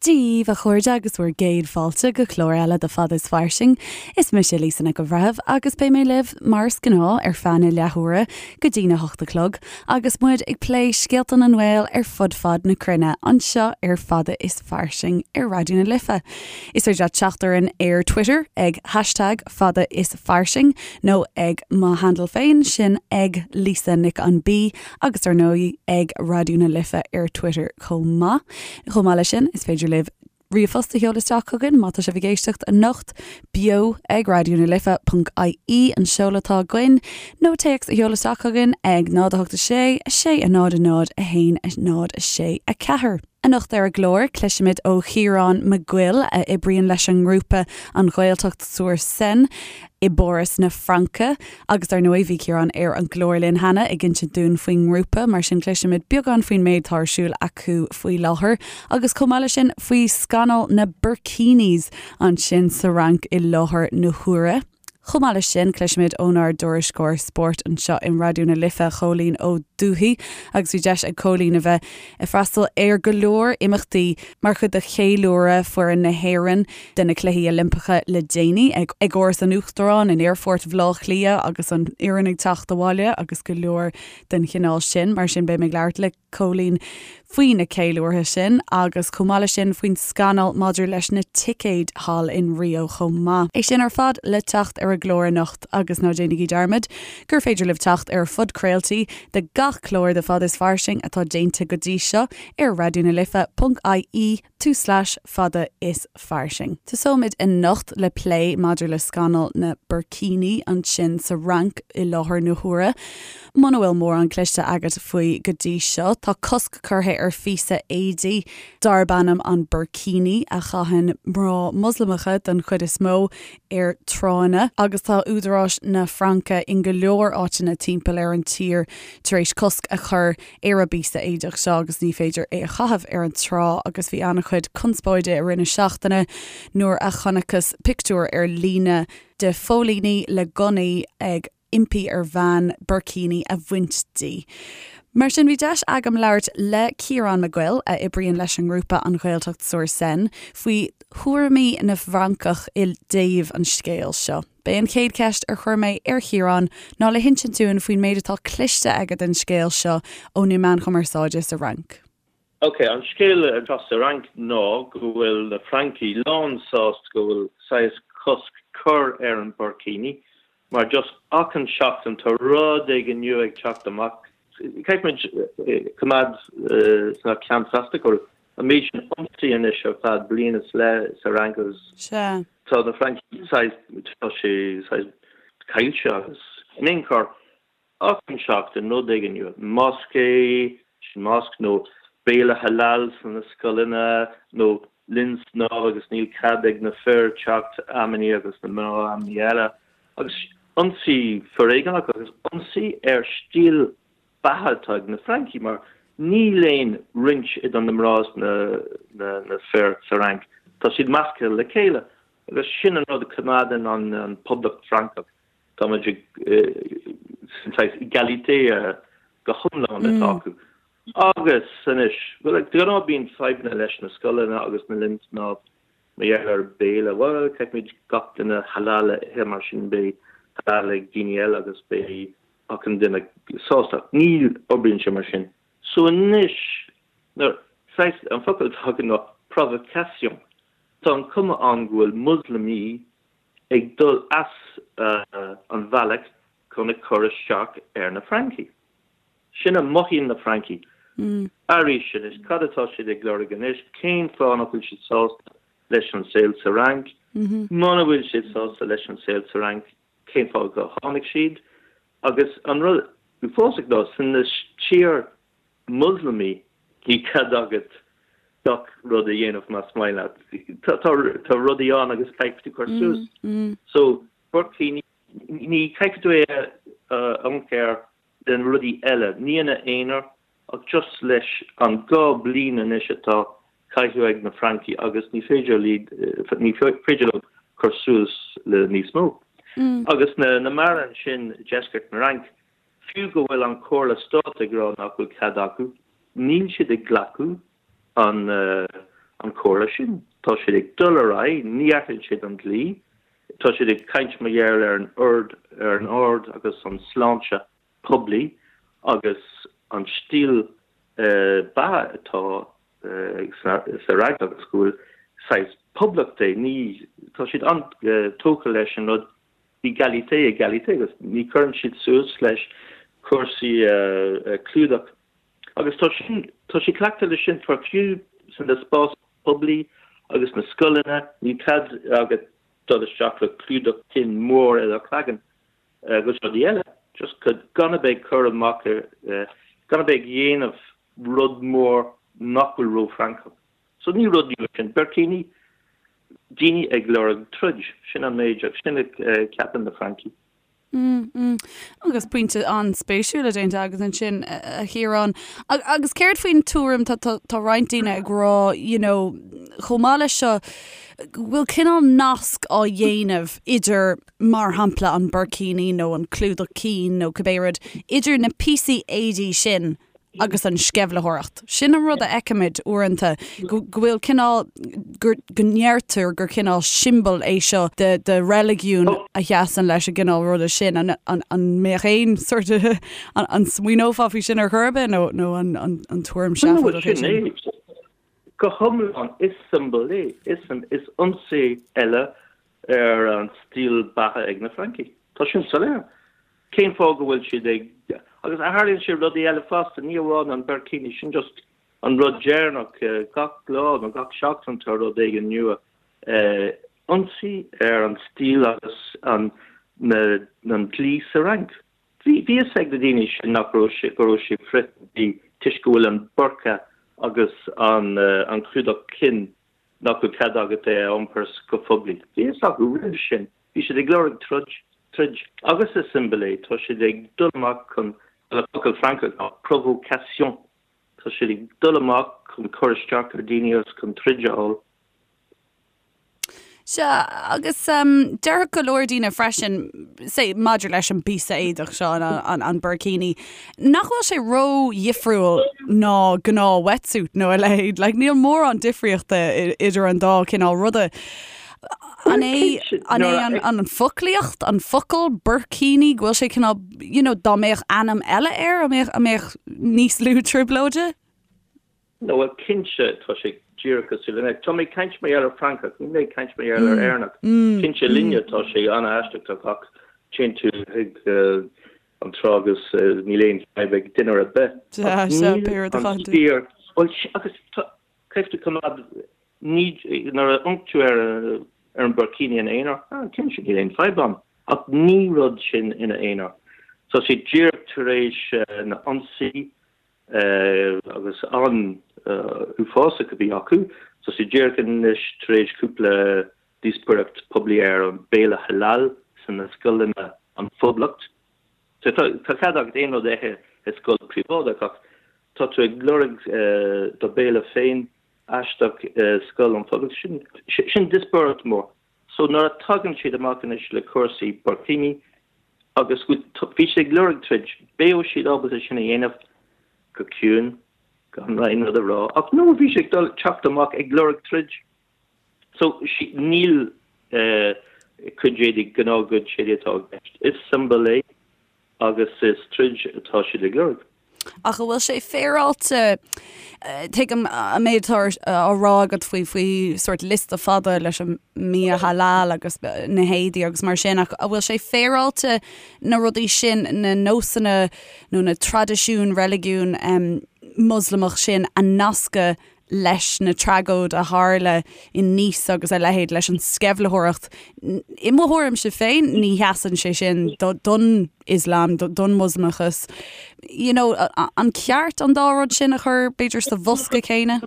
Dia daoibh, a chairde, agus bhur gcéad fáilte go clár eile de Fada is Fairsing. Is mise Lisa Nic an Bhreithimh agus beidh mé libh, mar is gnáth, ar feadh na leathuaire go dtí na hocht a chlog agus muid ag plé scéalta na nGael ar fud fad na cruinne anseo ar Fada is Fairsing ar Raidió na Life. Is féidir leat teacht orainn ar Twitter ag hashtag Fada is Fairsing nó ag mo handle féin, sin ag Lisa Nic an B agus ar ndóigh ag Raidió na Life ar Twitter chomh maith. Chomh maith leis sin, is féidir libh ríomhphost a sheoladh isteach chugainn má tá sibh ag éisteacht anocht, beo ag raidió na life ponc ie an seoladh atá againn, nó téacs a sheoladh isteach chugainn ag 0 8 6 6 0 0 1 0 6 4. Anocht ar an gclár, cloisfimid ó Chiarán Mac Goill, a oibríonn leis an ngrúpa An Ghaeltacht sur Seine i bPáras na Fraince. Agus dar ndóigh, bhí Ciarán ar an gclár linn cheana ag insint dúinn faoin ngrúpa, mar sin cloisfimid beagán faoin méid atá ar siúl acu faoi láthair, agus chomh maith leis sin faoi scannal na burkinis ansin sa Fhrainc i láthair na huaire. Chomh maith leis sin, cloisfimid ónár dtuairisceoir spóirt anseo in Raidió na Life, Cóilín Ó Dubhthaigh, agus bhí deis ag Cóilín a bheith ag freastal ar go leor imeachtaí mar chuid de cheiliúradh foireann na hÉireann de na Cluichí Oilimpeacha le déanaí, ag Áras an Uachtaráin, in Aerfort Bhaile Átha Cliath agus an fhoireann ag teacht abhaile agus go leor den chineál sin. Mar sin, beidh mé ag labhairt le. Cóilín faoi na ceiliúrtha sin agus chomh maith leis sin faoin scannal maidir leis na ticéid thall in Rio chomh maith. É sin ar fad le teacht ar an gclár anocht agus ná déanaigí dearmad gur féidir libh teacht ar phodchraoltaí de gach clár de Fada is Fairsing atá déanta go dtí seo ar raidionalife.ie tulslais fada is fairsing. Tosóimid anocht le plé maidir le scannal na burkini ansin sa Fhrainc i láthair na huaire. Muna bhfuil mórán cloiste agat faoi go dtí seo, tá cosc curtha ar phíosa éadaí darb ainm an burkini a chaitheann mná Moslamacha den chuid is mó ar tránna agus tá údaráis na Fraince in go leor áiteanna timpeall ar an tír tar éis cosc a chur ar an bpíosa éadach seo agus ní féidir é a chaitheamh ar an trá agus bhí an-chuid conspóide i rith na seachtaine nuair a chonacthas pictiúr ar líne de phóilíní le gunnaí ag impí ar bhean burkini a bhaint di. Mar sin bhí deis agam labhairt le Ciarán Mac Goill, a oibríonn leis an ngrúpa An Ghaeltacht sur Seine, faoi thuairimí na bhFrancach i dtaobh an scéil seo. B'é an chéad cheist ar chuir mé ar Chiarán ná le hinsint dúinn faoin méid atá cloiste aige den scéal seo ó na meáin chumarsáide sa Fhrainc. Ok, an scéal atá sa Fhrainc ná go bhfuil na Francaigh lán sásta go bhfuil saghas cosc cur ar an burkini mar just achan seachtain tá rud éigin nua ag teacht amach. Caithfidh muid coimeád sna ceann feasta go bhfuil an méid sin ionsaí anois ar feadh bliain is leith sa Fhrainc agus Sea. tá na Francaigh saghas, tá sé saghas caillte agus in aon chor achan seachtain rud éigin nua, mosquée, sin mosque, nó béile halal sna scoileanna nó linn snámha agus níl cead ag na fir teacht amannaí agus na mná amannaí eile agus ionsaí foréigeanach agus ionsaí ar stíl beatha atá ag na Francaigh mar níl aon roinnt idir na mná is na fir sa Fhrainc. Tá siad measctha le chéile agus sin an rud a choimeádann an Poblacht Francach. Tá muid ag sin saghas égalité go hiomlán atá acu. Agus anois, bhuel, de ghnáth bíonn fadhbanna leis na scoileanna agus na linn snámha mar gheall ar béile. Bhuel, caithfimid gach duine halal a ithe mar sin beidh halal ag daoine eile agus beidh achan duine sásta. Ní oibríonn sé mar sin. So anois, nuair, saghas, an focal atá agam ná provocation. Tá an cuma ann go bhfuil Muslamaí ag dul as an bhealach chun ag cur isteach ar na Francaigh. Sin a mothaíonn na Francaigh. Arís anois, cad atá siad ag lorg anois? Cén fáth nach bhfuil siad sásta leis an saol sa Fhrainc? Muna bhfuil siad sásta leis an saol sa Fhrainc, cén fáth go tháinig siad? Agus an rud uafásach ná, san tír Muslamaí, ní cead agat gach rud a dhéanamh más maith leat. Tá rudaí ann agus caithfidh tú cur suas. So, burkini, ní caithfidh tú é a iompar le na rudaí eile, ní ina aonar ach just leis an 2 bliain anois atá caitheamh ag na Francaigh agus ní féidir ní féidir leo cur suas le níos mó. Agus na na mná ansin i deisceart na Fhrainc, fiú go bhfuil an Comhairle Stáit ag rá nach bhfuil cead acu, níl siad ag glacadh an. an chomhairle sin. Tá siad ag dul ar aghaidh, ní athraíonn siad an dlí, tá siad ag caint mar gheall ar an ord, ar an ord agus an sláinte poiblí agus an stíl beatha atá sa Fhrainc agus go bhfuil saghas poblacht é, ní, tá siad an-tógtha leis an rud égalité, égalité agus ní chuireann siad suas leis cúrsaí clúdach agus tá sin, tá siad cleachta leis sin for fiú san spás poiblí agus na scoileanna, níl cead agat dul isteach le clúdach cinn mór ar do chloigeann agus rudaí eile, just gan a bheith ag cur amach ar, gan a bheith ag dhéanamh rud mór nach bhfuil ró-Fhrancach. So ní rud nua sin. Burkini, daoine ag lorg troid, sin an méid agus sin a ceapann na Francaigh. Mm, mm. Agus pointe an-spéisiúil déanta agat ansin, a Chiaráin. Agus céard faoin tuairim, tá, tá, tá roinnt daoine ag rá, you know, chomh maith leis seo, go bhfuil cineál nasc á dhéanamh idir, mar shampla, an burkini nó an clúdach cinn nó cibé rud, idir na píosaí éadaí sin agus an sceimhlitheoireacht. Sin an rud a fheicimid uaireanta, go bhfuil cineál, go ndeirtear gur cineál siombail é seo de de reiligiún a sheasann leis an gcineál ruda sin. An an an mbeadh aon sort of, an smaoineofá faoi sin ar chor ar bith nó nó an an an tuairim seafóideach é sin? Go hiomlán, is siombail é. Is is ionsaí eile ar an stíl beatha ag na Francaigh. Tá sin soiléir. Cén fáth go bhfuil siad ag, agus tharlaíonn sé rudaí eile fosta, ní amháin an burkini, sin just an rud deireanach, gach lá nó gach seachtain tá rud éigin nua. Ionsaí ar an stíl agus an an dlí sa Fhrainc. Bhí fhios ag na daoine sin nach raibh sé, go raibh sé frith-dhlí toisc go bhfuil an burqa agus an an clúdach cinn nach bhfuil cead agat é a iompar go poiblí. Bhí fhios acu roimh sin. Bhí siad ag lorg troid, troid. Agus is siombail é. Tá siad ag dul amach chun, bhuel, an focal Francach ná provocation. Tá siad ag dul amach chun cur isteach ar daoine agus chun troid a fháil. Sea, agus déarfadh go leor daoine freisin, say, maidir leis an bpíosa éadach seo, an, an burkini, nach bhfuil sé ró-dhifriúil ná gnáth wetsuit nó a leithéid. Like, níl mórán difríochta idir an dá cineál ruda. An é, an é an, an foclaíocht, an focal burkini, go bhfuil sé cineál, you know, dá mbeadh ainm eile air, an mbeadh, an mbeadh níos lú trioblóide? No, bhuel, cinnte, tá sé díreach cosúil le. Tá mé ag caint mar gheall ar Francach, níl mé ag caint mar gheall ar Éireannach. Cinnte, linne tá sé an-aisteach, tá gach, téann tú chuig an trá agus níl aon fadhb ag duine ar bith. Ach níl an fíor, bhuel, agus tá, caithfidh tú coimeád, ní, nuair a amharc tú ar ar an burkini ina aonar, ah, cinnte, níl aon fadhb ann. Ach ní rud sin ina aonar. Tá sé díreach tar éis na ionsaí agus an-uafásach a bhí acu. Tá sé díreach anois tar éis cúpla díospóireacht poiblí ar an béile halal sna scoileanna an Phoblacht. So tá cead agat aon rud a ithe i scoil príobháideach ach tá tú ag lorg do béile féin aisteach i scoil an Phoblacht. Sin sin díospóireacht mór. So nuair a tagann siad amach anois le cúrsaí burkini agus bhí siad ag lorg troid, beidh siad ábalta sin a dhéanamh go ciúin, gan aon rud a rá. Ach no, bhí siad ag dul teacht amach ag lorg troid. So níl cuid éadaí, gnáthchuid éadaí atá i gceist. Is siombail é agus is troid atá siad ag lorg. Ach an bhfuil sé féaráilte, tuigim an méid atá á rá agat faoi faoi sórt liosta fada leis an mbia halal agus na héadaí agus mar sin, ach an bhfuil sé féaráilte na rudaí sin, na nósanna nó na traidisiúin reiligiún Moslamach sin a nascadh leis na tragóid a tharla in Nice agus a leithéid, leis an sceimhlitheoireacht. I mo thuairimse féin, ní sheasann sé sin don Ioslam, don Mhoslamachas. You know, an ceart an dá rud sin a chur, b'fhéidir, sa bhosca céanna?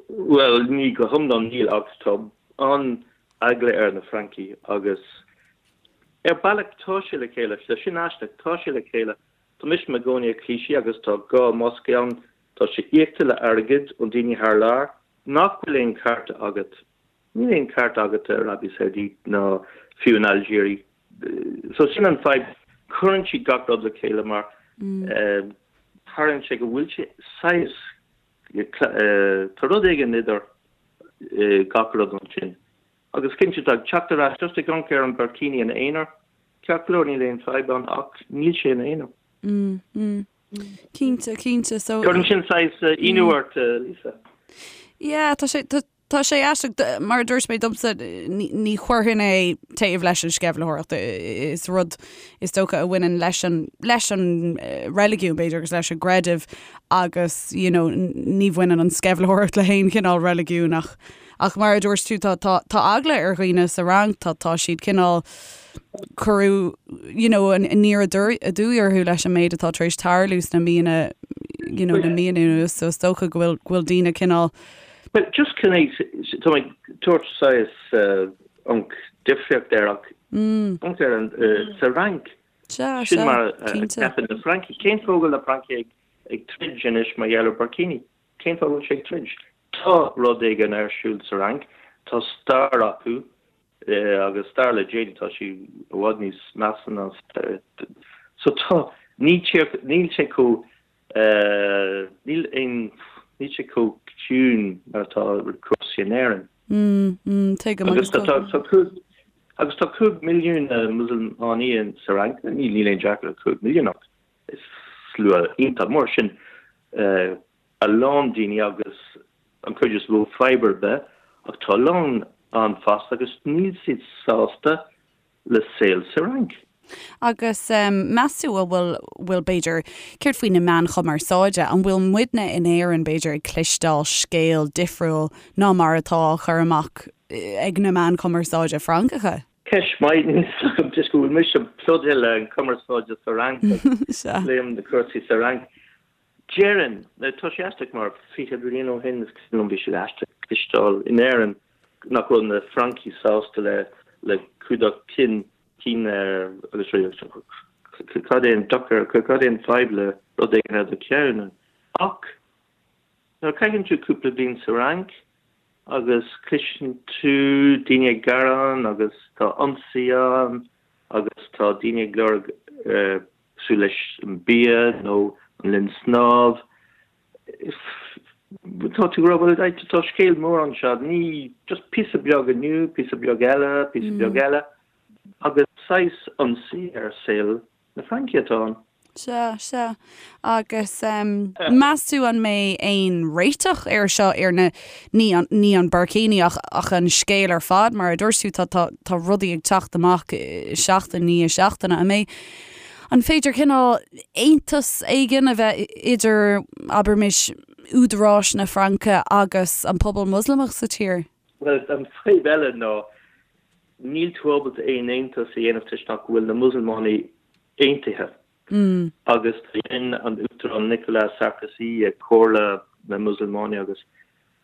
Bhuel, ní go hiomlán níl, ach tá an-eagla ar na Francaigh agus ar bealach tá sé le chéile, sin aisteach, tá sé le chéile. Tá mise i mo chónaí i Clichy agus tá dhá mosque ann, Tá sé íocta le airgead ó daoine thar lear. Nach bhfuil aon cearta agat? Níl aon cearta agat i Arabia Saudite ná fiú in Algeria. So sin an fadhb. Cuireann siad gach rud le chéile mar tarlaíonn sé go bhfuil sé saghas. Tá rud éigin idir gach rud ansin. Agus cinnte tá teacht ar ais just ag amharc ar an burkini ina aonar, ceart go leor níl aon fadhb ann ach níl sé ina aonar. Mm, mm. Cinnte, cinnte. So. Cuireann sin saghas ionadh ort, Lisa. Yeah, tá sé, tá, tá sé aisteach, mar a dúirt mé domsa, ní, ní chuirfinn é taobh leis an sceimhlitheoireacht. Is rud is dócha a bhaineann leis an, leis an reiligiún b'fhéidir agus leis an gcreideamh agus, you know, ní bhaineann an sceimhlitheoireacht le haon chineál reiligiún ach, Ach mar a dúirt tú, tá, tá, tá eagla ar dhaoine sa Fhrainc, tá, tá siad cineál, cuireadh, you know, aniar aduaidh orthu leis an méid atá tar éis tarlú sna míonna, you know, na míonna anuas, so is dócha go bhfuil, go bhfuil daoine cineál. Well, just chun é, tá mé ag tabhairt saghas an difríocht air ach amharc ar an, sa Fhrainc, Sea, sin sea, mar a cinnte. cheapann na Francaigh. Cén fáth go bhfuil na Francaigh ag, ag troid anois mar gheall ar burkini? Cén fáth go bhfuil siad ag troid? Tá rud éigin ar siúl sa Fhrainc, tá stair acu agus stair le déanaí, tá sí i bhfad níos measa ná so tá, ní tír, níl sé chomh, níl aon, níl sé chomh ciúin mar atá cúrsaí in Éirinn. Mm, tuigim agus tá, tá cúig, agus tá 5 milliún Musulmánaí sa Fhrainc, níl aon deacracht le 5 milliún ach is slua iontach mór sin. a lán daoine agus an chuid is mó fadhb ar bith ach tá a lán ann fosta agus níl siad sásta le saol sa Fhrainc. Agus meas tú an bhfuil, bhfuil b'fhéidir, céard faoi na meáin chumarsáide, an bhfuil muidne in Éirinn b'fhéidir ag cloisteáil scéal difriúil ná mar atá á chur amach ag na meáin chumarsáide Francacha? Ceist mhaith, níl fhios agam toisc go bhfuil mise plódaithe le an cumarsáide sa Fhrainc agus léim na cúrsaí sa Fhrainc. Déarfainn, tá sé aisteach mar 20 bliain ó shin is cuimhin liom bhí sé aisteach cloisteáil in Éirinn nach raibh na Francaigh sásta le le cumhdach cinn cinn agus cad é an dochar, cad é an fadhb le rud éigin ar do cheann? Ach nuair a chaitheann tú cúpla bliain sa Fhrainc agus cloiseann tú daoine ag gearán agus tá ionsaí ann agus tá daoine ag lorg cosúil leis an bia nó an linn snámh. Tá tú ag rá, bhuel, tá scéal mór anseo, ní just píosa beag inniu, píosa beag eile, píosa beag eile, agus saghas ionsaí ar saol na Fraince atá ann. Sea, sea. Agus meas tú an mbeidh aon réiteach air seo, ar na, ní an, ní an burkini ach, ach an scéal ar fad, mar a dúirt tú, tá, tá, tá rudaí ag teacht amach seachtain i ndiaidh seachtaine. An mbeidh, an féidir cineál aontas éigin a bheith idir, abraimis, údaráis na Fraince agus an pobal Moslamach sa tír? Bhuel, an fadhb eile ná níl tú ábalta aon aontas a dhéanamh toisc nach bhfuil na Musulmánaigh aontaithe agus dhein an Uachtarán Nicolas Sarkozy ag Comhairle na Musulmánaigh agus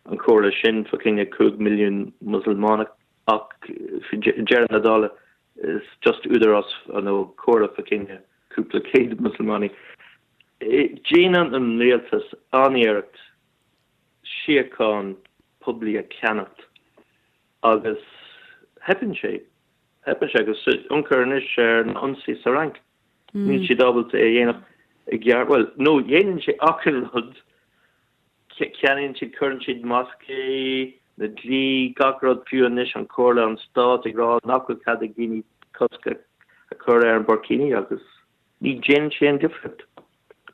an comhairle sin fá choinne 5 milliún Musulmánach ach deireadh na dála is just údarás nó comhairle fá choinne cúpla céad Musulmánaigh. Déanann an rialtas an-iarracht síocháin poiblí a cheannacht agus theipeann sé. Theipeann sé agus amharc anois ar na ionsaí sa Fhrainc. Níl siad ábalta é a dhéanamh i gceart. Bhuel, nó dhéanann sé achan rud. Ceannaíonn siad, cuireann siad moscaí, na dlí, gach rud, fiú anois an Comhairle, an Stát ag rá nach bhfuil cead ag daoine cosc a chur ar an burkini agus ní dhéanann sé aon difríocht.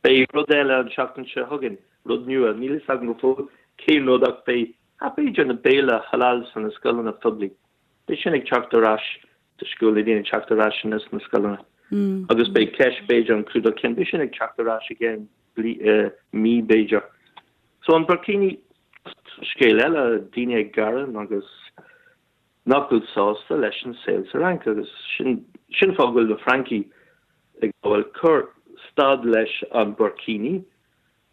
Beidh rud eile an seachtain seo chugainn, rud nua, níl fhios agam go fóill cén rud ach beidh, b'fhéidir na béile halal sna scoileanna phoiblí. Beidh sin ag teacht ar ais toisc go bhfuil na daoine ag teacht ar ais anois sna scoileanna agus beidh ceist b'fhéidir an clúdach cinn, beidh sin ag teacht ar ais i gceann mí b'fhéidir. So an burkini, scéal eile, daoine ag gearán agus nach bhfuil sásta leis an saol sa Fhrainc agus sin sin fáth go bhfuil na Francaigh ag rá bhuel cuir stad leis an burkini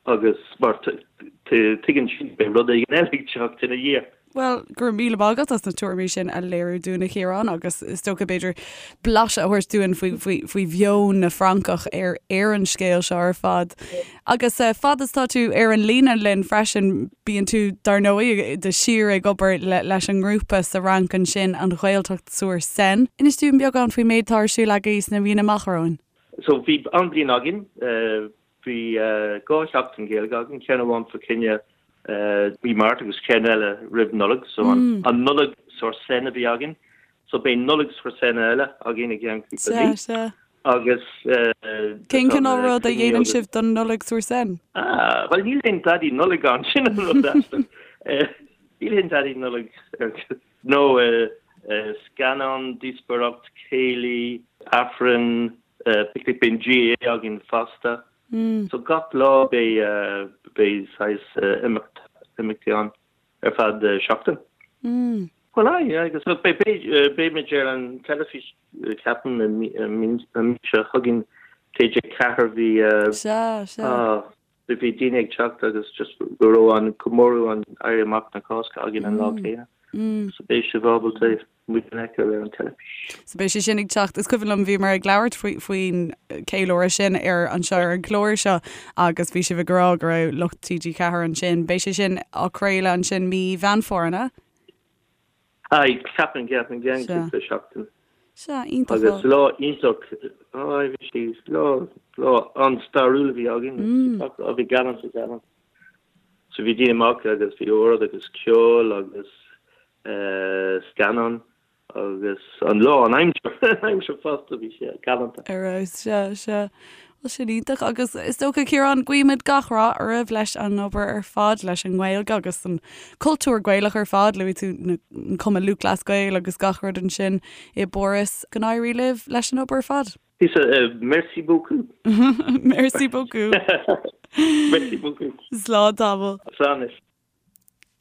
agus mar tuigeann siad beidh rud éigin eile ag teacht ina dhiaidh. Bhuel, go raibh míle maith agat as na tuairimí sin a léiriú dúinn, a Chiaráin, agus is dócha, b'fhéidir, blaiseadh a thabhairt dúinn faoi, faoi, faoi mheon na bhFrancach ar, ar an scéal seo ar fad. Agus fad is tá tú ar an líne linn freisin, bíonn tú, dar ndóigh, de shíor ag obair le, leis an ngrúpa sa Fhrainc ansin, an Ghaeltacht sur Seine. Inis dúinn beagán faoin méid atá ar siúl agaibh sna míonna amach romhainn. So, bhí an-bhliain againn. Bhí 2 sheachtain Gaeilge againn, ceann amháin fá choinne. Mí Márta agus ceann eile roimh Nollaig, so an Nollaig sur Seine a bhí againn. So beidh Nollaig sur Seine eile againn i gceann cúpla mí. Sea, sea. Agus Cén cineál rud a dhéanann sibh don Nollaig sur Seine? Ah, bhuel níl aon Daidí Nollag ann, sin an rud aisteach. Níl aon Daidí Nollag nó scannán, díospóireacht, céilí, Aifreann, picnic, beidh an GAA againn fosta. So gach lá beidh beidh saghas imeacht imeachtaí ann ar feadh seachtain. Bhuel aye, agus beidh beidh muid ar an teilifís ceapaim an mí seo chugainn TG4 bhí Sea, sea. Bhí daoine ag teacht agus just go raibh an comóradh an Éirí Amach na Cásca againn an lá céanna. So beidh sibh ábalta muid a fheiceáil ar an teilifís. So beidh sé sin ag teacht. Is cuimhin liom bhíomar ag labhairt faoi faoin ceiliúradh sin ar anseo ar an gclár seo agus bhí sibh ag rá go raibh lucht TG4 ansin. Beidh sé sin á craoladh ansin mí Mheán Fómhair, an ea? Aye, ceapaim, ceapaim, i gceann Sea. cúpla seachtain. Sea, iontach. Agus lá iontach, aye, bhí sé, lá, lá an-stairiúil a bhí againn. Gach lá, bhí galánta, galánta. So bhí daoine amach agus bhí ord agus ceol agus scannán agus an lá, an aimsir, an aimsir fosta, bhí sé galánta. Ar fheabhas, sea, sea. Bhuel, sin iontach agus is dócha, Ciarán, guímid gach rath oraibh leis an obair ar fad, leis an nGaeilge agus an cultúr Gaelach ar fad, luaigh tú an Cumann Lúthchleas Gael agus gach rud ansin i bPáras. Go n-éirí libh leis an obair ar fad. Lisa, merci beaucoup. Merci beaucoup. Merci beaucoup. Slán tamall. Slán anois.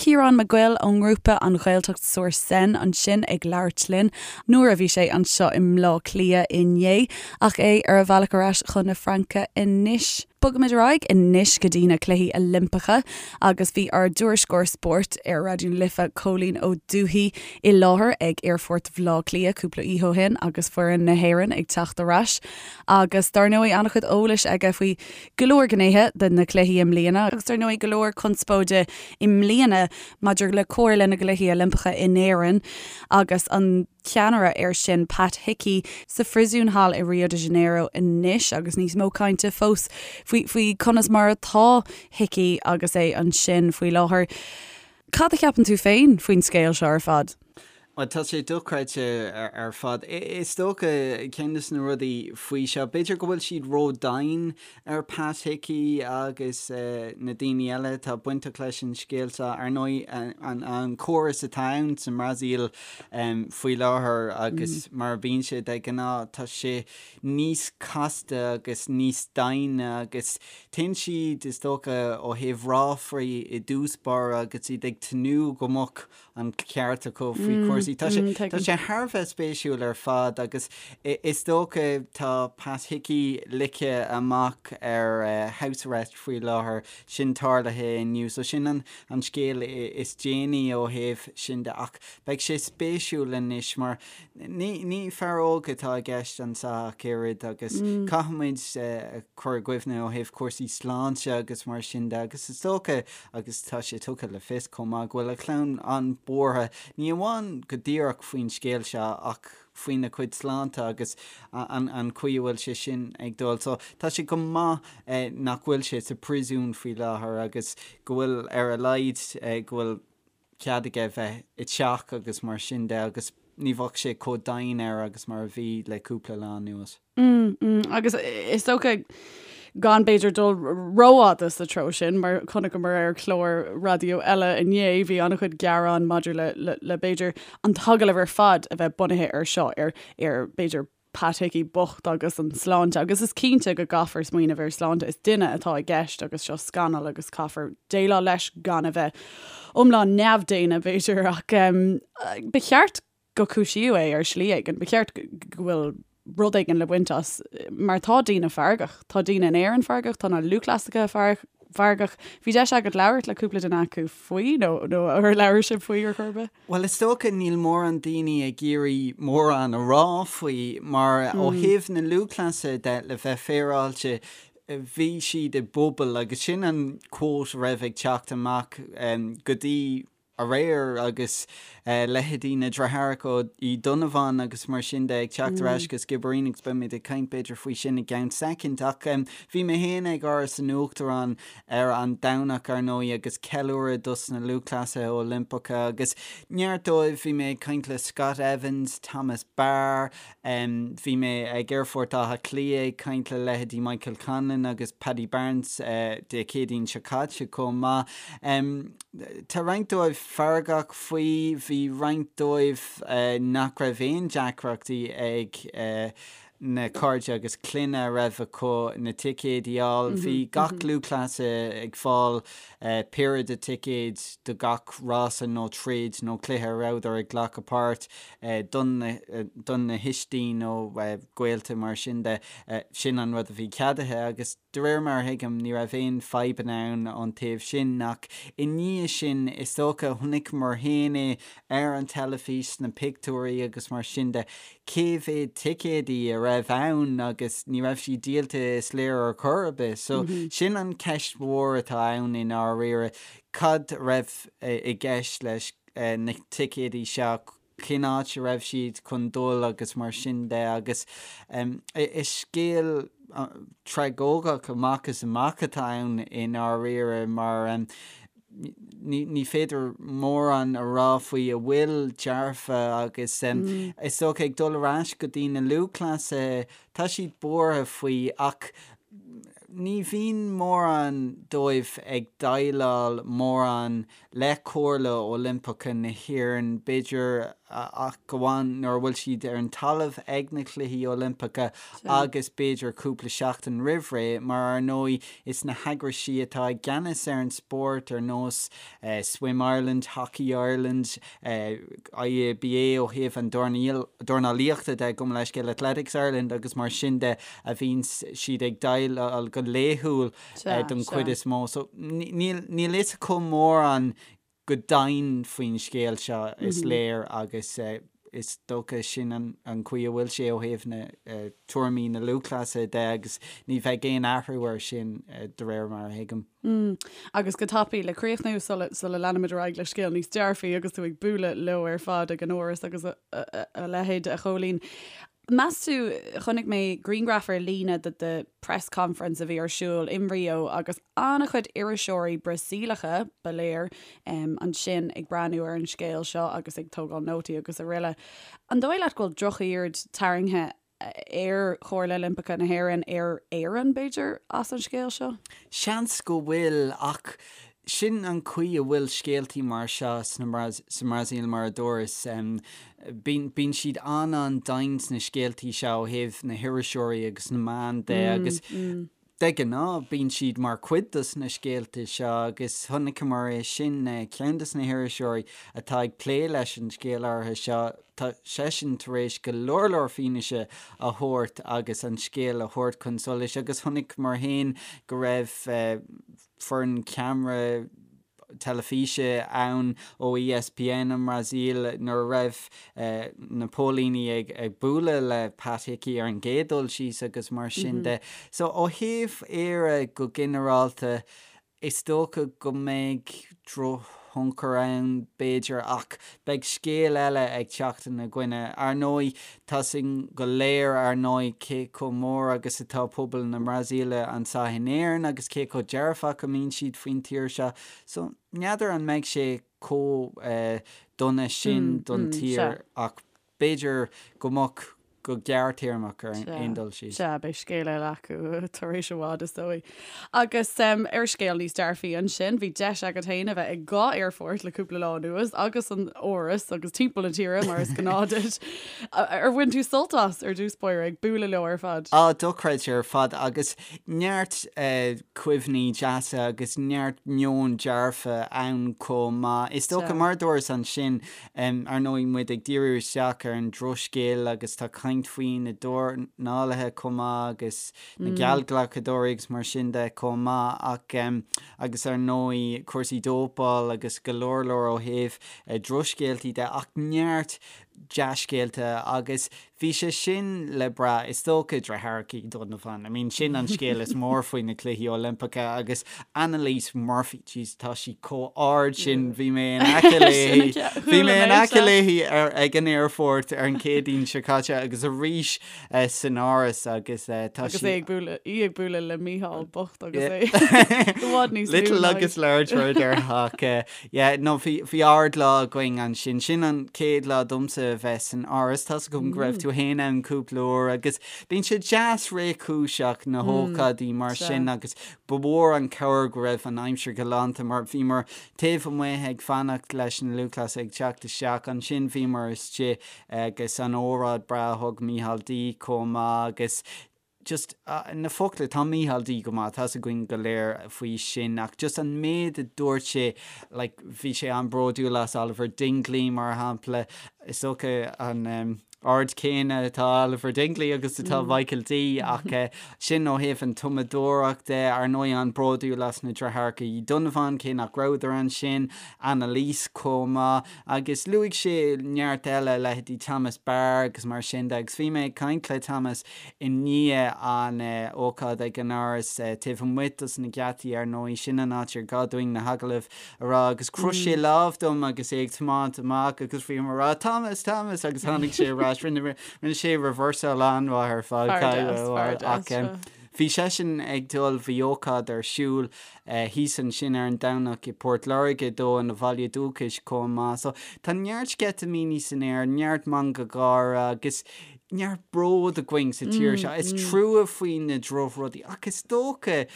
Ciarán Mac Goill ón ngrúpa An Ghaeltacht sur Seine ansin ag labhairt linn nuair a bhí sé anseo i mBleá Cliath inné ach é ar a bhealach ar ais chun na Fraince anois. Bogaimid ar aghaidh anois go dtí na Cluichí Oilimpeacha agus bhí ár dtuairisceoir spóirt ar Raidió na Life, Cóilín Ó Dubhthaigh, i láthair ag Aerfort Bhaile Átha Cliath cúpla oíche ó shin agus foireann na hÉireann ag teacht ar ais agus dar ndóigh an-chuid eolais aige faoi go leor gnéithe de na cluichí i mbliana agus dar ndóigh go leor conspóide i mbliana maidir le Comhairle na gCluichí Oilimpeacha in Éirinn agus an ceannaire air sin Pat Hickey sa phríosún thall i Rio de Janeiro anois agus níos mó cainte fós faoi faoi conas mar atá Hickey agus é ansin faoi láthair. Cad a cheapann tú féin faoin scéal seo ar fad? Bhuel, tá sé dochreidte ar fad. Is dócha, ceann de na rudaí faoi seo, b'fhéidir go bhfuil siad ró-dian ar Pat Hickey agus na daoine eile atá bainteach leis an scéal seo. Ar ndóigh, an córas atá ann sa mBrasaíl faoi láthair agus mar a bhíonn sé de ghnáth, tá sé níos casta agus níos doimhne agus téann siad, is dócha, ó thaobh ráflaí i dtús báire agus iad ag tnúth go mbeadh an ceart acu faoi chúrsaí. Tá sé tá sé thar a bheith spéisiúil ar fad agus is dócha tá Pat Hickey ligthe amach ar house arrest faoi láthair, sin tarlaithe inniu. So sin an an scéal is déanaí ó thaobh sin de ach beidh sé spéisiúil anois mar Ní, ní fear óg atá i gceist anseo ach oiread agus caithfimid cur i gcuimhne ó thaobh cúrsaí sláinte agus mar sin de agus is dócha, agus tá sé tugtha le fios chomh maith, go bhfuil a chlann an-bhuartha, ní amháin go díreach faoin scéal seo ach faoina chuid sláinte agus an, an chaoi a bhfuil sé sin ag dul. So tá sé go maith nach bhfuil sé sa phríosún faoi láthair agus go bhfuil ar a laghad go bhfuil cead aige bheith i dteach agus mar sin de agus ní bheadh sé chomh dian air agus mar a bhí le cúpla lá anuas. Mm, mm, agus is dócha gan b'fhéidir dul rófhada sa treo sin, mar chonaiceamar ar chlár raidió eile inné, bhí an-chuid gearán maidir le, le, le b'fhéidir an t-agallamh ar fad a bheith bunaithe ar seo, ar, ar b'fhéidir Pat Hickey bocht agus an sláinte agus is cinnte go gcaithfear smaoineamh ar sláinte, is duine atá i gceist agus seo scannal agus caithfear déileáil leis gan a bheith iomlán neamhdhaonna b'fhéidir ach ba cheart go cúisíodh é ar shlí éigin, ba cheart go bhfuil rud éigin le baint as mar tá daoine feargach, tá daoine in Éirinn feargach, tá na lúthchleasaithe feargach. Bhí deis agat labhairt le cúpla duine acu faoi nó nó ar labhair sibh faoi ar chor ar bith? Bhuel, is dócha níl mórán daoine ag iarraidh mórán a rá faoi, mar ó thaobh na lúthchleasaithe de, le bheith féaráilte, bhí siad i bpuball agus sin an quote a raibh ag teacht amach go dtí. aréir agus leithéidí na deartháireacha Uí Dhonnabháin agus mar sin de ag teacht ar ais go Skibbereen agus beimid ag caint b'fhéidir faoi sin i gceann soicind. Ach bhí mé féin ag Áras an Uachtaráin ar an Domhnach ar ndóigh agus ceiliúradh dos na lúthchleasaithe Oilimpeacha agus neart dóibh, bhí mé ag caint le Scott Evans, Thomas Barr, Bhí mé ag Aerfort Átha Cliath ag caint le leithéidí Michael Conlan agus Paddy Barnes Dé Céadaoin seo caite chomh maith. Tá roinnt dóibh feargach faoi, bhí roinnt dóibh nach raibh aon deacrachtaí ag na cairde agus clainne a raibh acu na ticéid a fháil. Bhí gach lúthchleasaí ag fáil péire de ticéid do gach rása nó troid nó cluiche a rabhadar ag glacadh páirt. don na thuistí nó gaolta mar sin de, sin an rud a bhí ceadaithe agus de réir mar a thuigim ní raibh aon fadhbanna ann ón taobh sin ach i ndiaidh sin is dócha chonaiceamar féin é ar an teilifís sna pictiúirí agus mar sin de cé mhéad ticéadaí a raibh ann agus ní raibh siad díolta is léir ar chor ar bith so sin an ceist mhór atá ann i ndáiríre cad a raibh i gceist leis na ticéadaí seo, cén áit a raibh siad chun dul agus mar sin de agus is scéal tragóideach amach is amach atá ann i ndáiríre mar ní féidir mórán a rá faoi a bhfuil dearfa agus is dócha ag dul ar ais go dtí na lúthchleasaithe, tá siad buartha faoi ach ní bhíonn mórán dóibh ag déileáil mórán le Comhairle Oilimpeacha na hÉireann, b'fhéidir, ach amháin nuair a bhfuil siad ar an talamh ag na Cluichí Oilimpeacha agus b'fhéidir cúpla seachtain roimh ré, mar ar ndóigh is na heagraisí atá i gceannas ar an spórt ar nós Swim Ireland, Hockey Ireland, IABA ó thaobh an dornálaíochta de, gabh mo leithscéal, Athletics Ireland agus mar sin de a bhíonn siad ag déileáil go laethúil. don chuid is mó. So níl fhios acu mórán go domhain faoin scéal seo is léir agus is dócha sin an chaoi a bhfuil sé ó thaobh na tuairimí na lúthchleasaithe de agus ní bheidh aon athrú air sin de réir mar a thuigim. Agus go tapaidh le críochnú sula sula leanaimid ar aghaidh le scéal níos dearfaí agus tú ag bualadh leo ar fad ag an Áras agus a leithéid a Chóilín. Meas tú, chonaic mé grianghraf ar líne de the press conference a bhí ar siúl in Rio agus an-chuid iriseoirí Brasaíleacha, ba léir, ansin ag breathnú ar an scéal seo agus ag tógáil nótaí agus araile. An dóigh leat go bhfuil drochaird tarraingthe ar Chomhairle Oilimpeacha na hÉireann, ar Éirinn, b'fhéidir, as an scéal seo? Seans go bhfuil, ach Sin an chaoi a bhfuil scéaltaí mar seo sa mBrasaíl, mar a dúras. Bíonn siad an-an-domhain sna scéaltaí seo ó thaobh na hiriseoirí agus na meán de agus de ghnáth bíonn siad mar chuid dos na scéalta seo agus chonaiceamar é sin, ceann dos na hiriseoirí atá ag plé leis an scéal áirithe seo, tá seisean tar éis go leor leor fianaise a thabhairt agus an scéal a thabhairt chun solais agus chonaiceamar féin go raibh foireann ceamara teilifíse ann ó ESPN an mBrasaíl nuair a raibh na póilíní ag bualadh le Pat Hickey ar an gcéad dul síos agus mar sin de. So ó thaobh Éire go ginearálta, is dócha go mbeidh drochthionchar ann b'fhéidir ach beidh scéal eile ag teacht ina gcoinne. Ar ndóigh, Tá 'fhios againn go léir, ar ndóigh, cé chomh mór agus atá pobal na Brasaíle anseo in Éirinn agus cé chomh dearfach a mbíonn siad faoin tír seo. So, n'fheadar an mbeidh sé chomh dona sin don tír ach b'fhéidir go mbeadh go gearrthéarmach ar aon dul síos. Sea, beidh scéal eile acu tar éis i bhfad, is dóigh. Agus ar scéal níos dearfaí ansin, bhí deis agat féin a bheith ag dhá aerfort le cúpla lá anuas agus an Áras agus timpeall na tíre mar is gnáth duit. Ar bhain tú sult as ar dtús báire ag bualadh leo ar fad? Á, dochreidte ar fad agus neart cuimhní deasa agus neart meon dearfa ann chomh maith. Is dócha, mar a dúras ansin, ar ndóigh muid ag díriú isteach ar an drochscéal agus tá caint faoi na dornálaithe chomh maith agus na geallghlacadóirí agus mar sin de chomh maith ach agus ar ndóigh cúrsaí dópáil agus go leor leor ó thaobh drochscéaltaí de ach neart. Dea-scéalta agus bhí sé sin le brath, is dócha, Deartháireacha Uí Dhonnabháin. I mean, sin an scéal is mór faoi na Cluichí Oilimpeacha agus Annalise Murphy, jeez, tá sí chomh ard sin, bhí mé in aice léi, bhí mé in aice léi ar, ag an aerfort ar an Chéadaoin seo caite agus arís san Áras agus tá sí. Agus é ag bualadh, í ag bualadh le Mícheál bocht agus é i bhfad níos lú Little agus large mar a déarfá. Yeah, no, bhí, bhí ard-lá againn ansin. Sin an chéad lá domsa a bheith san Áras. Tá's agam go raibh tú fhéin ann cúpla uair agus bíonn sé deas réchúiseach na hócáidí mar sin agus ba mhór an cabhair go raibh an aimsir galánta mar bhíomar taobh amuigh ag fanacht leis na lúthchleasaithe ag teacht isteach. Ansin bhíomar istigh agus an óráid breá a thug Mícheál D chomh maith agus just na focla, tá Mícheál D go maith, tá's againn go léir faoi sin, ach just an méid a dúirt sé, like, bhí sé an-bhródúil as Oliver Dingley, mar shampla, is dócha an ard céanna atá Oliver Dingley agus atá Michael D, ach sin ó thaobh an tumadóireacht de, ar ndóigh an-bhródúil as na deartháireacha Uí Dhonnabháin, cé nach rabhadar ansin, Annalise chomh maith, agus luaigh sé neart eile, leithéidí Thomas Barr agus mar sin de, agus bhí mé ag caint le Thomas I ndiaidh an ócáid ag an Áras, taobh amuigh dos na geataí ar ndóigh, sin an áit ar gá dúinn na hagallaimh a rá, agus chroith sé lámh dom agus é ag tiomáint amach agus bhí mé ag rá Thomas, Thomas agus tháinig sé ar ais, rinne rinne sé reversáil an-mhaith ar fad, Fear deas, fear deas, ach sea. bhí seisean ag dul, bhí ócáid ar siúl thíos ansin ar an Domhnach i bPort Láirge dó ina bhaile dúchais chomh maith. So tá neart sceitimíní san aer, neart meangadh gáire agus neart bród againn sa tír seo. Is trua faoi na drochrudaí ach is dócha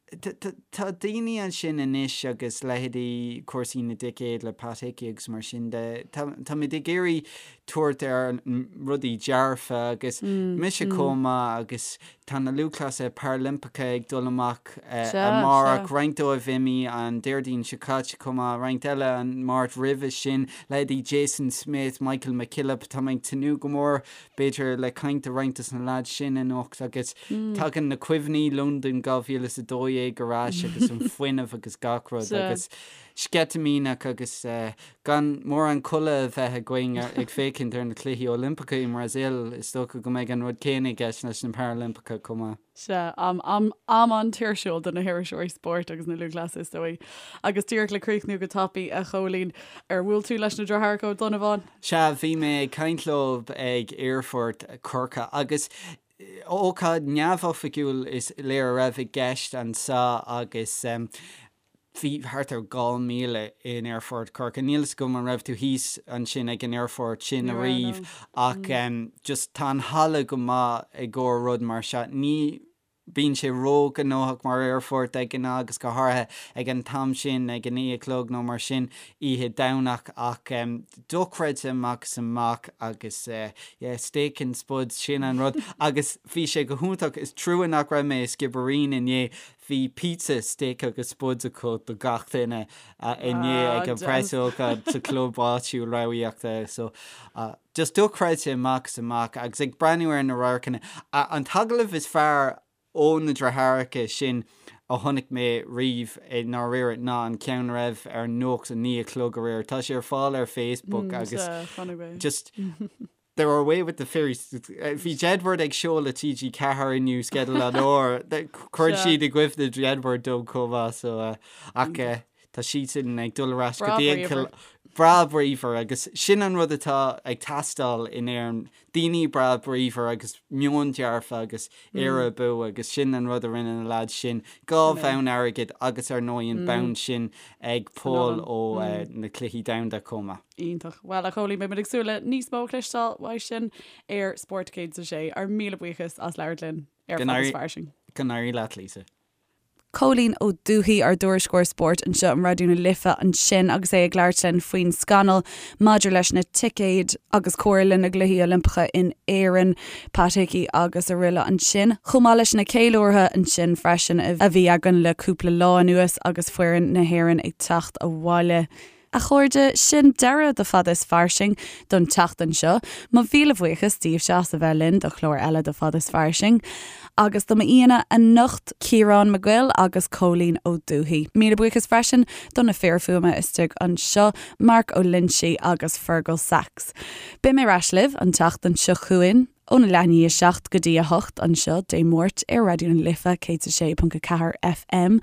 tá daoine ansin anois agus leithéidí cúrsaí na dticéad le Pat Hickey agus mar sin de, táimid ag iarraidh tabhairt ar rudaí dearfa agus mise chomh maith agus Tá na lúthchleasaithe Parailimpeacha ag dul amach amárach, roinnt dóibh imithe an Déardaoin seo caite chomh maith, roinnt eile an Máirt roimhe sin, leithéidí Jason Smith, Michael McKillop, tá mé ag tnúth go mór b'fhéidir le caint le roinnt dos na leaids sin anocht agus tagann na cuimhní Londain 2012 ar ais agus an fuinneamh agus gach rud agus sceitimíneach agus Gan mórán codladh a bheith againn ag féachaint ar na Cluichí Oilimpeacha i mBrasaíl, is dócha go mbeidh an rud céanna i gceist leis na Parailimpeacha chomh maith. Sea, am, am, am an-tuirsiúil do na hiriseoirí spóirt agus na lúthchleasaithe, is dóigh. Agus díreach le críochnú go tapaidh, a Chóilín, ar bhuail tú leis na deartháireacha Ó Donnabháin? Sea, bhí mé ag caint leo ag aerfort Chorcaí agus ócáid neamhoifigiúil is léir a raibh i gceist anseo agus Bhí thart ar 2,000 in Aerfort Chorcaí. Níl fhios agam an raibh tú thíos ansin ag an aerfort sin ariamh ach just tá an halla go maith i gcomhair rud mar seo. Ní bíonn sé ró-ghnóthach mar aerfort de ghnáth agus go háirithe ag an t-am sin ag a 9 a chlog nó mar sin oíche Domhnach ach dochreidte amach is amach agus yeah steak and spuds sin an rud agus bhí sé go hiontach. Is trua nach raibh mé i Skibbereen inné Bhí pizza, steak agus spuds acu do gach duine inné ag an preasócáid sa chlub áitiúil ramhaíochta. So, just dochreidte amach is amach agus ag breathnú ar na radharcanna. An t-agallamh is fearr ó na deartháireacha sin a chonaic mé riamh i ndáiríre ná an ceann a raibh ar an nuacht a 9 a chlog aréir. Tá sé ar fáil ar Facebook agus just They're away with the fairies. Bhí Jedward ag seoladh TG4 inniu sceideal an uair. Cuireann siad i gcuimhne Jedward dom chomh maith so ach tá siadsan ag dul ar ais go dtí an breá bríomhar agus sin an rud atá ag teastáil in Éirinn, daoine breá bríomhar agus meon dearfa agus Éire abú agus sin an rud a rinne na lads sin, 2 bhonn airgid agus ar ndóigh an bonn sin ag Paul ó na Cluichí Domhanda chomh maith. Iontach. Bhuel, a Chóilín, beidh muid ag súil le níos mó a chloisteáil uait sin ar Spórt 106. Ár míle buíochas as labhairt linn ar Fada is Fairsing. Go n-éirí leat, Lisa. Cóilín Ó Dubhthaigh, ár dtuairisceoir spóirt anseo in Raidió na Life ansin agus é ag labhairt linn faoin scannal maidir leis na ticéid agus Comhairle na gCluichí Oilimpeacha in Éirinn, Pat Hickey agus araile ansin, chomh maith leis na ceiliúrtha ansin freisin a bhí againn le cúpla lá anuas agus foireann na hÉireann ag teacht abhaile. A chairde, sin deireadh do Fada is Fairsing don tseachtain seo. Mo mhíle bhuíochas daoibhse as a bheith linn do chlár eile de Fada is Fairsing. Agus do m'aíonna anocht, Ciarán Mac Goill agus Cóilín Ó Dubhthaigh. Míle buíochas freisin do na fir fuaime istigh anseo, Marc Ó Loinsigh agus Fergal Sachs. Beidh mé ar ais libh an tseachtain seo chugainn óna leath i ndiaidh 7 go dtí 8 anseo Dé Máirt ar Raidió na Life 106.4 FM.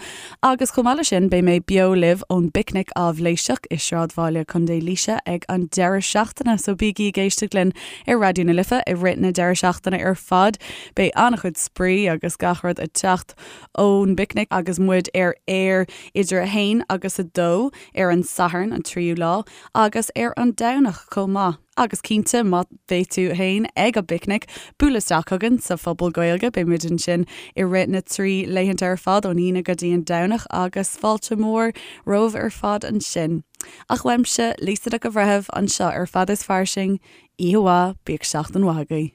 Agus chomh maith leis sin beidh mé beo libh ón bPicnic Áibhléiseach i Sráidbhaile Contae Laoise ag an deireadh seachtaine, so bígí ag éisteacht linn ar Raidió na Life i rith na deireadh seachtaine ar fad. Beidh an-chuid spraoi agus gach rud ag teacht ón bPicnic agus muid ar aer idir 1 agus 2 ar an Satharn, an tríú lá, agus ar an Domhnach chomh maith. Agus cinnte, má bheidh tú féin ag an bPicnic, buail isteach chugainn sa Phuball Gaeilge, beidh muid ansin i rith na dtrí laethanta ar fad, ón Aoine go dtí an Domhnach, agus fáilte mhór romhaibh ar fad ansin. Ach uaimse, Lisa Nic an Bhreithimh, anseo ar Fada is Fairsing, oíche mhaith, bíodh seachtain mhaith agaibh.